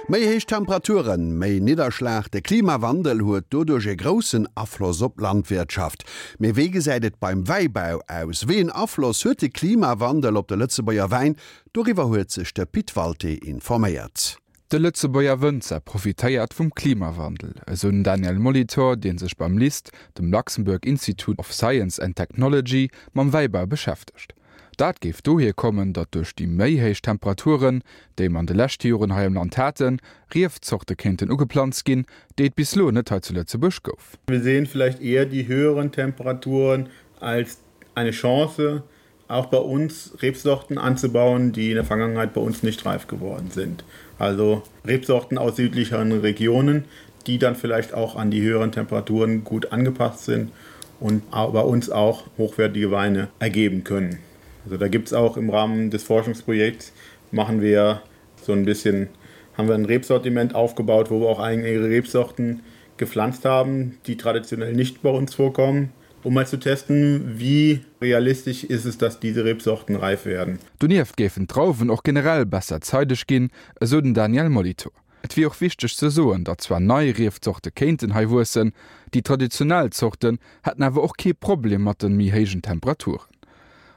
Méi héich Temperaturen, méi Nidderschlag, de Klimawandel huet doduerch e groussen Afloss op d'Landwirtschaft. Mee wéi gesäit et beim Wäibau aus? Wéi en Afloss huet de Klimawandel op de Lëtzebuerger Wäin? Doriwwer huet sech de Pit Walté informéiert. De Lëtzebuerger Wënzer profitéiert vum Klimawandel, esou den Daniel Molitor, dee sech beim LIST, dem Luxembourg Institute of Science and Technology, mam Wäibau beschäftegt. Dat géif dohier kommen, datt duerch déi méi héich Temperaturen, déi mer an de leschte Joren hei am Land haten, Riefzorte kéinten ugeplanzt ginn, déi et bis lo net hei zu Lëtzebuerg gouf. Wir sehen vielleicht eher die höheren Temperaturen als eine Chance, auch bei uns Rebsorten anzubauen, die in der Vergangenheit bei uns nicht reif geworden sind. Also Rebsorten aus südlicheren Regionen, die dann vielleicht auch an die höheren Temperaturen gut angepasst sind und bei uns auch hochwertige Weine ergeben können. Also da gibt es auch im Rahmen des Forschungsprojekts machen wir so ein bisschen haben wir ein Rebsortiment aufgebaut, wo wir auch eigene Rebsorten gepflanzt haben, die traditionell nicht bei uns vorkommen, um mal zu testen, wie realistisch ist es, dass diese Rebsorten reif werden. Donieft géifen d'Drauwen och generell besser zeideg ginn, esou den Daniel Molitor. Et wier och wichteg ze soen, datt zwar nei Riefzorte kéinten hei wuessen, déi traditionell Zorten hätten awer och kee Problem mat de méi héijen Temperaturen.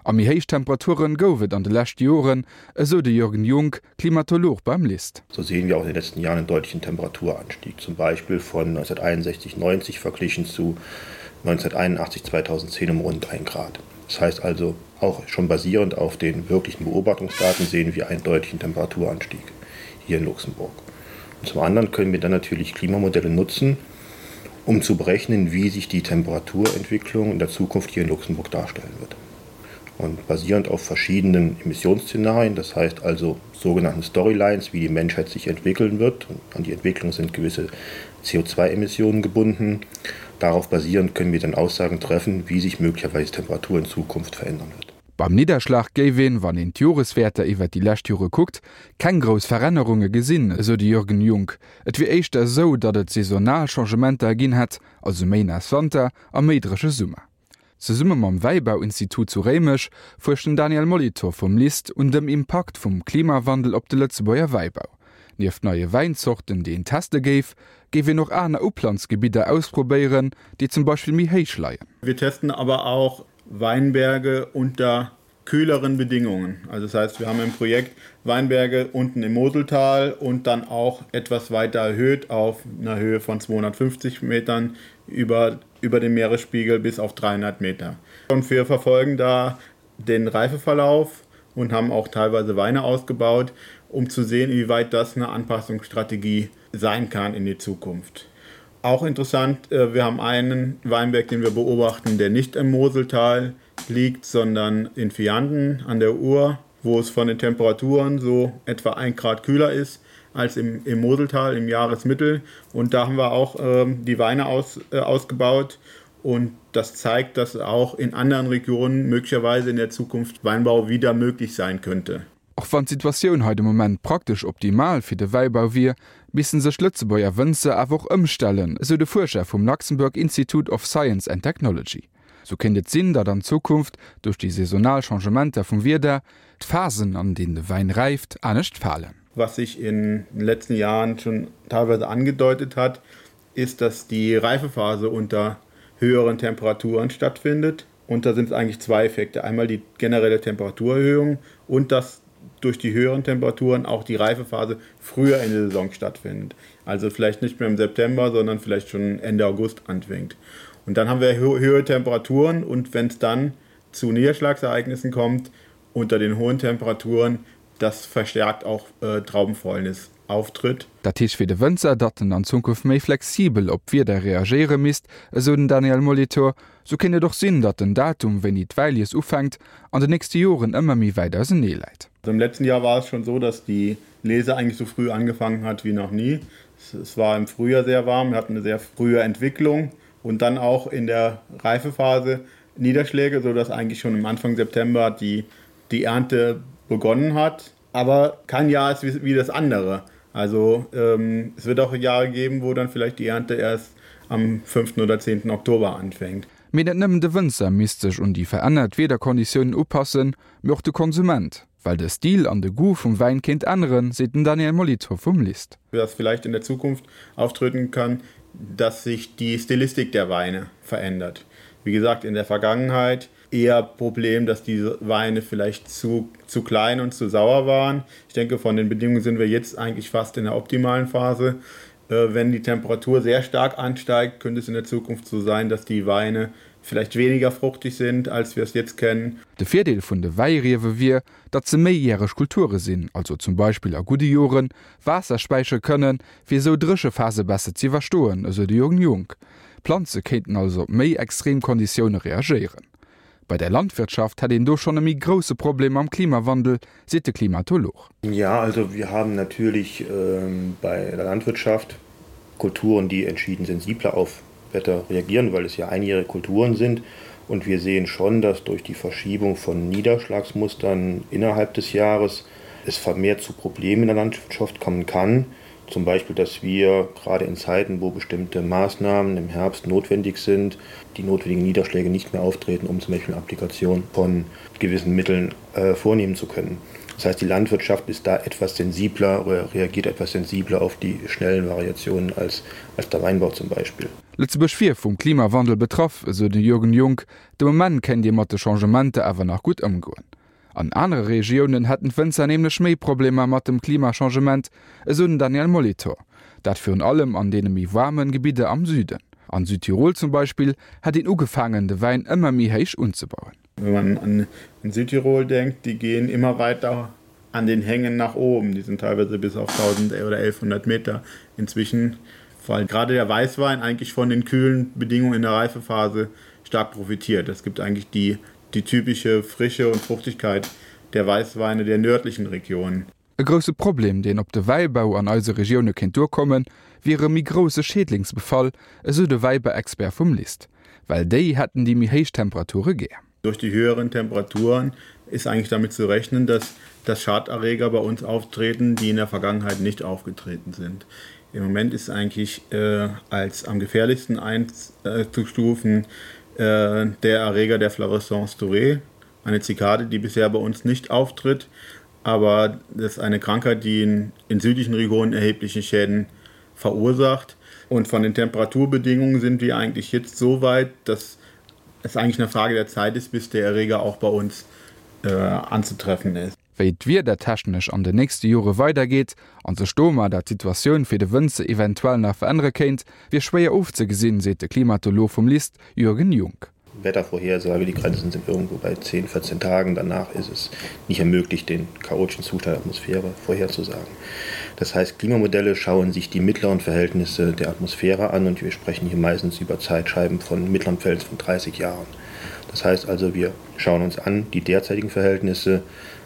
A méi héich Temperaturen gouf et an de leschte Joren, esou de Jürgen Junk, Klimatolog beim LIST. So sehen wir auch in den letzten Jahren einen deutlichen Temperaturanstieg, zum Beispiel von 1961 90 verglichen zu 1981 2010 um rund 1 Grad. Das heißt also, auch schon basierend auf den wirklichen Beobachtungsdaten sehen wir einen deutlichen Temperaturanstieg hier in Luxemburg. Und zum anderen können wir dann natürlich Klimamodelle nutzen, um zu berechnen, wie sich die Temperaturentwicklung in der Zukunft hier in Luxemburg darstellen wird. Und basierend auf verschiedenen Emissionsszenarien, das heißt also sogenannten Storylines, wie die Menschheit sich entwickeln wird, und an die Entwicklung sind gewisse CO2-Emissionen gebunden. Darauf basierend können wir dann Aussagen treffen, wie sich möglicherweise Temperatur in Zukunft verändern wird. Beim Nidderschlag géif een, wann een d'Joreswäerter iwwert déi lescht Jore kuckt, keng grouss Verännerunge gesinn, esou de Jürgen Junk. Et wier éischter esou, datt et saisonal Changementer ginn hätt, also méi naass Wanter a méi dréche Summer. Zesumme mam Wäibauinstitut zu Réimech fuerscht den Daniel Molitor vum LIST un dem Impakt vum Klimawandel op de Lëtzebuerger Wäibau. Nieft neie Wäinzorten, déi een teste géif, géif een och aner Uplanzgebidder ausprobéieren, déi zum Beispill méi héich leien. Wir testen aber auch Weinberge unter kühleren Bedingungen. Also das heißt, wir haben im Projekt Weinberge unten im Moseltal und dann auch etwas weiter erhöht auf einer Höhe von 250 Metern über, über dem Meeresspiegel bis auf 300 Meter. Und wir verfolgen da den Reifeverlauf und haben auch teilweise Weine ausgebaut, um zu sehen, inwieweit das eine Anpassungsstrategie sein kann in die Zukunft. Auch interessant, äh, wir haben einen Weinberg, den wir beobachten, der nicht im Moseltal liegt, sondern in Vianden an der Uhr, wo es von den Temperaturen so etwa 1 Grad kühler ist als im, im Moseltal im Jahresmittel. Und da haben wir auch ähm, die Weine aus, äh, ausgebaut. Und das zeigt, dass auch in anderen Regionen möglicherweise in der Zukunft Weinbau wieder möglich sein könnte. Och wann d'Situatioun hei de Moment praktesch optimal fir de Wäibau wier, missten sech d'Lëtzebuerger Wënzer awer och ëmstellen, esou de Fuerscher vum Luxembourg Institute of Science and Technology. Sou kéint et sinn, datt an Zukunft, duerch déi saisonal Changementer vum Wieder, d'Phasen, an deenen de Wäin räift, anescht falen. Was sich in den letzten Jahren schon teilweise angedeutet hat, ist, dass die Reifephase unter höheren Temperaturen stattfindet. Und da sind es eigentlich zwei Effekte. Einmal die generelle Temperaturerhöhung und dass durch die höheren Temperaturen auch die Reifephase früher in der Saison stattfindet. Also vielleicht nicht mehr im September, sondern vielleicht schon Ende August anfängt. Und dann haben wir höhere Temperaturen und wenn es dann zu Niederschlagsereignissen kommt, unter den hohen Temperaturen, das verstärkt auch äh, Traubenfäulnis auftritt. Dat heescht fir de Wënzer, datt en an Zukunft méi flexibel op d'Wieder reagéiere misst, esou den Daniel Molitor. Sou kéint et och sinn, datt den Datum, wéini d'Wäilies ufänkt, an den nächste Joren ëmmer méi wäit ausenee läit. Im letzten Jahr war es schon so, dass die Lese eigentlich so früh angefangen hat wie noch nie. Es war im Frühjahr sehr warm, wir hatten eine sehr frühe Entwicklung und dann auch in der Reifephase Niederschläge, so dass eigentlich schon am Anfang September die, die Ernte begonnen hat. Aber kein Jahr ist wie, wie das andere. Also ähm, es wird auch Jahre geben, wo dann vielleicht die Ernte erst am 5. oder 10. Oktober anfängt. Mee net nëmmen de Wënzer misst sech un déi verännert Wiederkonditiounen upassen, mee och de Konsument. Well de Stil an de Goût vum Wäin kéint änneren, seet den Daniel Molitor vum LIST. Was vielleicht in der Zukunft auftreten kann, dass sich die Stilistik der Weine verändert. Wie gesagt, in der Vergangenheit eher Problem, dass diese Weine vielleicht zu, zu klein und zu sauer waren. Ich denke, von den Bedingungen sind wir jetzt eigentlich fast in der optimalen Phase. Äh, wenn die Temperatur sehr stark ansteigt, könnte es in der Zukunft so sein, dass die Weine vielleicht weniger fruchtig sind, als wir es jetzt kennen. De Virdeel vun de Wäiriewe wier, datt se méijäreg Kulture sinn, also zum Beispill a gudde Joren Waasser späichere kënnen, fir esou Dréchephase besser z'iwwerstoen, esou de Jürgen Junk. D'Planze kéinten also op méi extrem Konditioune reagéieren. Bei der Landwirtschaft hätt een do schonn e méi grousse Problem mam Klimawandel, seet de Klimatolog. Ja, also wir haben natürlich ähm, bei der Landwirtschaft Kulturen, die entschieden sensibler auf Wetter reagieren, weil es ja einjährige Kulturen sind. Und wir sehen schon, dass durch die Verschiebung von Niederschlagsmustern innerhalb des Jahres es vermehrt zu Problemen in der Landwirtschaft kommen kann. Zum Beispiel, dass wir gerade in Zeiten, wo bestimmte Maßnahmen im Herbst notwendig sind, die notwendigen Niederschläge nicht mehr auftreten, um zum Beispiel eine Applikation von gewissen Mitteln äh, vornehmen zu können. Das heißt, die Landwirtschaft ist da etwas sensibler oder reagiert etwas sensibler auf die schnellen Variationen als, als der Weinbau zum Beispiel. Lëtzebuerg wier vum Klimawandel betraff, esou de Jürgen Junk. De Moment kéint ee mat de Changementer awer nach gutt ëmgoen. An anere Regiounen hätten d'Wënzer nämlech méi Problemer mat dem Klimachangement, esou den Daniel Molitor. Dat virun allem an deene méi waarme Gebidder am Süden. An Südtirol zum Beispill hätt een ugefaangen, de Wäin ëmmer méi héich unzebauen. Wenn man an Südtirol denkt, die gehen immer weiter an den Hängen nach oben. Die sind teilweise bis auf 1000 oder 1100 Meter inzwischen, weil gerade der Weißwein eigentlich von den kühlen Bedingungen in der Reifephase stark profitiert. Es gibt eigentlich die, die typische Frische und Fruchtigkeit der Weißweine der nördlichen Regionen. E grousse Problem, deen op de Wäibau an eise Regioune kéint duerkommen, wier e méi grousse Schädlingsbefall, esou de Wäibauexpert vum LIST. Well déi hätten déi méi héich Temperature gär. Durch die höheren Temperaturen ist eigentlich damit zu rechnen, dass dass Schaderreger bei uns auftreten, die in der Vergangenheit nicht aufgetreten sind. Im Moment ist eigentlich äh, als am gefährlichsten einzustufen äh, der Erreger der Fluorescence dorée, eine Zikade, die bisher bei uns nicht auftritt, aber das ist eine Krankheit, die in, in südlichen Regionen erhebliche Schäden verursacht. Und von den Temperaturbedingungen sind wir eigentlich jetzt so weit, dass es eigentlich eine Frage der Zeit ist, bis der Erreger auch bei uns äh, anzutreffen ist. Wéi d'Wieder technesch an den nächste Jore weidergeet an sech domadder d'Situatioun fir de Wënzer eventuell nach verännere kéint, wier schwéier ofzegesinn, seet de Klimatolog vum LIST Jürgen Junk. Wettervorhersage, die Grenzen sind irgendwo bei 10, 14 Tagen. Danach ist es nicht mehr möglich, den chaotischen Zustand der Atmosphäre vorherzusagen. Das heißt, Klimamodelle schauen sich die mittleren Verhältnisse der Atmosphäre an und wir sprechen hier meistens über Zeitscheiben von mittleren Verhältnissen von 30 Jahren. Das heißt also, wir schauen uns an die derzeitigen Verhältnisse,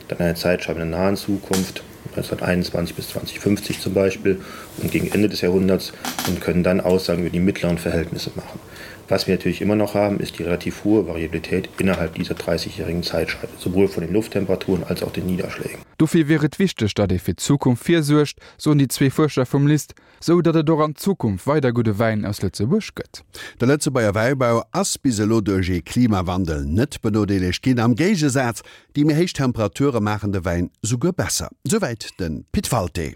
dann eine Zeitscheibe in der nahen Zukunft, 1921 bis 2050 zum Beispiel und gegen Ende des Jahrhunderts und können dann Aussagen über die mittleren Verhältnisse machen. Was wir natürlich immer noch haben, ist die relativ hohe Variabilität innerhalb dieser 30-jährigen Zeitscheibe, sowohl von den Lufttemperaturen als auch den Niederschlägen. Dofir wier et wichteg, datt ee fir d'Zukunft virsuergt, soen déi zwee Fuerscher vum LIST, sou datt et och an Zukunft weider gudde Wäin aus Lëtzebuerg gëtt. De Lëtzebuerger Wäibau ass bis elo duerch ee Klimawandel net benodeelegt ginn. Am Géigesaz, déi méi héich Temperature maachen de Wäin souguer besser. Souwäit de Pit Walté.